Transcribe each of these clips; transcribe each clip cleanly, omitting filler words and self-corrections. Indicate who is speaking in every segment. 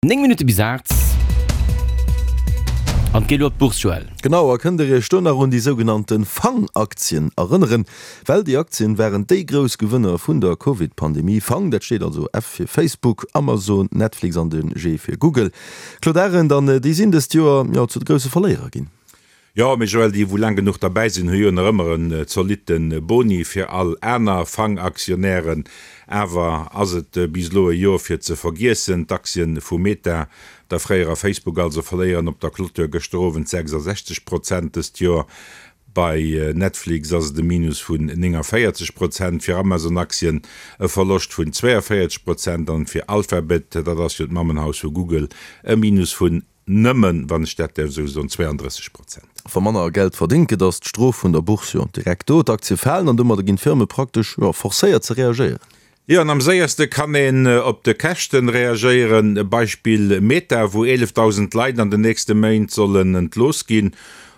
Speaker 1: 9 Minutte bis 8 an et geet elo op d'Bourse, Joël.
Speaker 2: Genau, a kënnt der iech do nach un déi sougenannte Fang-Aktien erënneren? Well déi Aktien waren déi grouss Gewënner vun der Covid-Pandemie. Fang, dat steet also F fir Facebook, Amazon, Netflix an de G fir Google. Claude Arend, an déi sinn dëst Joer, jo, zu de grousse Verléierer ginn.
Speaker 3: Jo, mee Joël, déi wou laang genuch derbäi sinn, hu jo nach ëmmer en zolitte Boni. Fir all aner Fang-Aktionären awer ass et bis elo e Jor fir ze vergiessen. D'Aktien vu Meta, der fréierer Facebook also, verléieren op der Clôture gëschter Owend 66 Prozent dëst Jor. Bei Netflix ass et e Minus vun 49 Prozent, fir Amazon-Aktien e Verloscht vun 42 Prozent an fir Alphabet, dat ass jo d'Mammenhaus vu Google, e Minus vun Nëmmen, wann ech dat däerf esou soen, 32 Prozent.
Speaker 2: Wa manner Geld verdéngt gëtt, ass d'Strof vun der Bourse jo direkt do. D'Aktie falen an domadder ginn d'Firme praktesch, jo, forcéiert ze reagéieren.
Speaker 3: Jo, an am séierste kann een op de Käschten reagéieren. Beispill Meta, wou 11.000 Leit an den nächste Méint sollen entlooss ginn.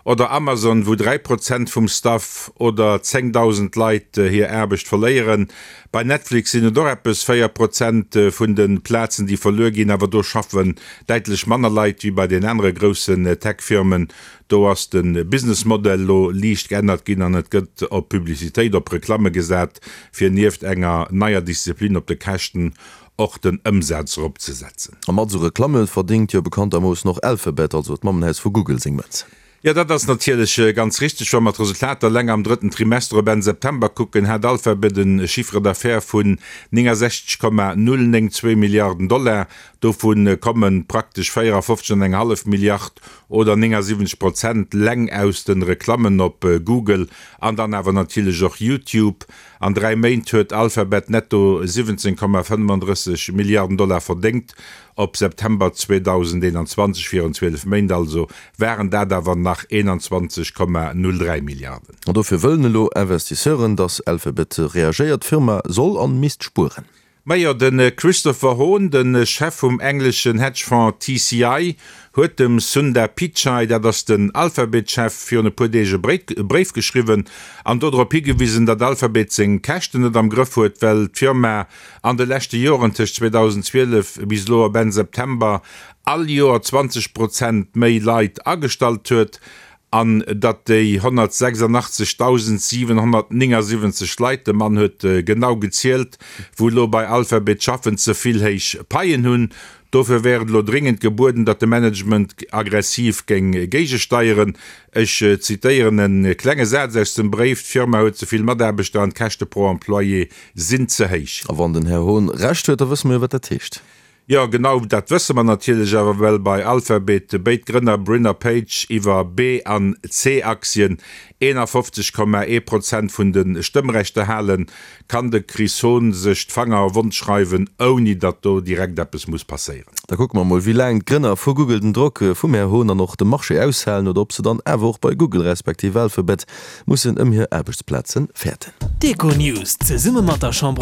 Speaker 3: Oder Amazon, wou 3 Prozent vum Staff oder 10.000 Leit hir Aarbecht verléieren. Bei Netflix sinn et och eppes 4 Prozent vun de Plazen, déi verluer ginn, awer do schaffen däitlech manner Leit wéi bei den anere groussen Tech-Firmen. Do ass de Business-Modell elo liicht geännert ginn an et gëtt op Publicitéit, op Reklamme gesat, fir nieft enger neier Disziplin op de Käschten och den Ëmsaz erop ze setzen.
Speaker 2: A mat esou Reklamme verdéngt jo bekanntermoossen och Alphabet, also d'Mammenhaus vu Google, seng Mënz.
Speaker 3: Jo, dat ass natierlech ganz richteg. Wa mer d'Resultater eleng am drëtten Trimester op Enn September kucken, hat Alphabet e Chiffre d'affaires vun 69,092 Milliarden Dollar. Dovu komme praktesch 54 an eng hallef Milliard oder 79 Prozent leng aus de Reklammen op Google an dann awer natierlech och YouTube. An 3 Méint huet Alphabet netto 17,35 Milliarden Dollar verdéngt. Op September 2021, virun 12 Méint also, waren dat awer nach 21,03 Milliarden.
Speaker 2: An dofir wëllen elo Investisseuren, datt Alphabet reagéiert. D'Firma soll an misst spueren.
Speaker 3: Majo, de Christopher Hohn, de Chef vum engleschen Hedgefonds TCI, huet dem Sundar Pichai, dat ass den Alphabet-Chef, virun e puer Deeg e Bréif geschriwwen an dodrop higewisen, datt Alphabet seng Käschten net am Grëff huet, well d'Firma an de leschte Joren, tëscht 2012 bis elo op Enn September, all Joer 20 Prozent méi Leit agestallt huet. An datt déi 186.779 Leit, de Mann huet genau gezielt, wou elo bei Alphabet schaffen, ze vill héich Paien hunn. Dofir wär et elo dréngend gebueden, datt de Management aggressiv géing géigesteieren. Ech zitéieren e klenge Saz aus dem Bréif, D'Firma huet ze vill Mataarbechter an d'Käschte pro Employé sinn ze héich.
Speaker 2: A wann den Här Hohn Recht huet, da wësse mer jo, wat dat heescht.
Speaker 3: Jo, genau dat wësse mer natierlech awer, well bei Alphabet béid Grënner Brin a Page iwwer B an C-Aktien 51,1 Prozent vun de Stëmmrechter halen, kann de Chris Hohn sech d'Fanger wond schreiwen, ouni datt do direkt eppes muss passéieren.
Speaker 2: Da kucke mer mol, wéi laang d'Grënner vu Google den Drock vum Här Hohn an och dem Marché aushalen oder ob se dann awer och bei Google respektiv Alphabet mussen ëm hir Aarbechtsplaze fäerten.
Speaker 4: D'Econews zesumme mat der Chambre.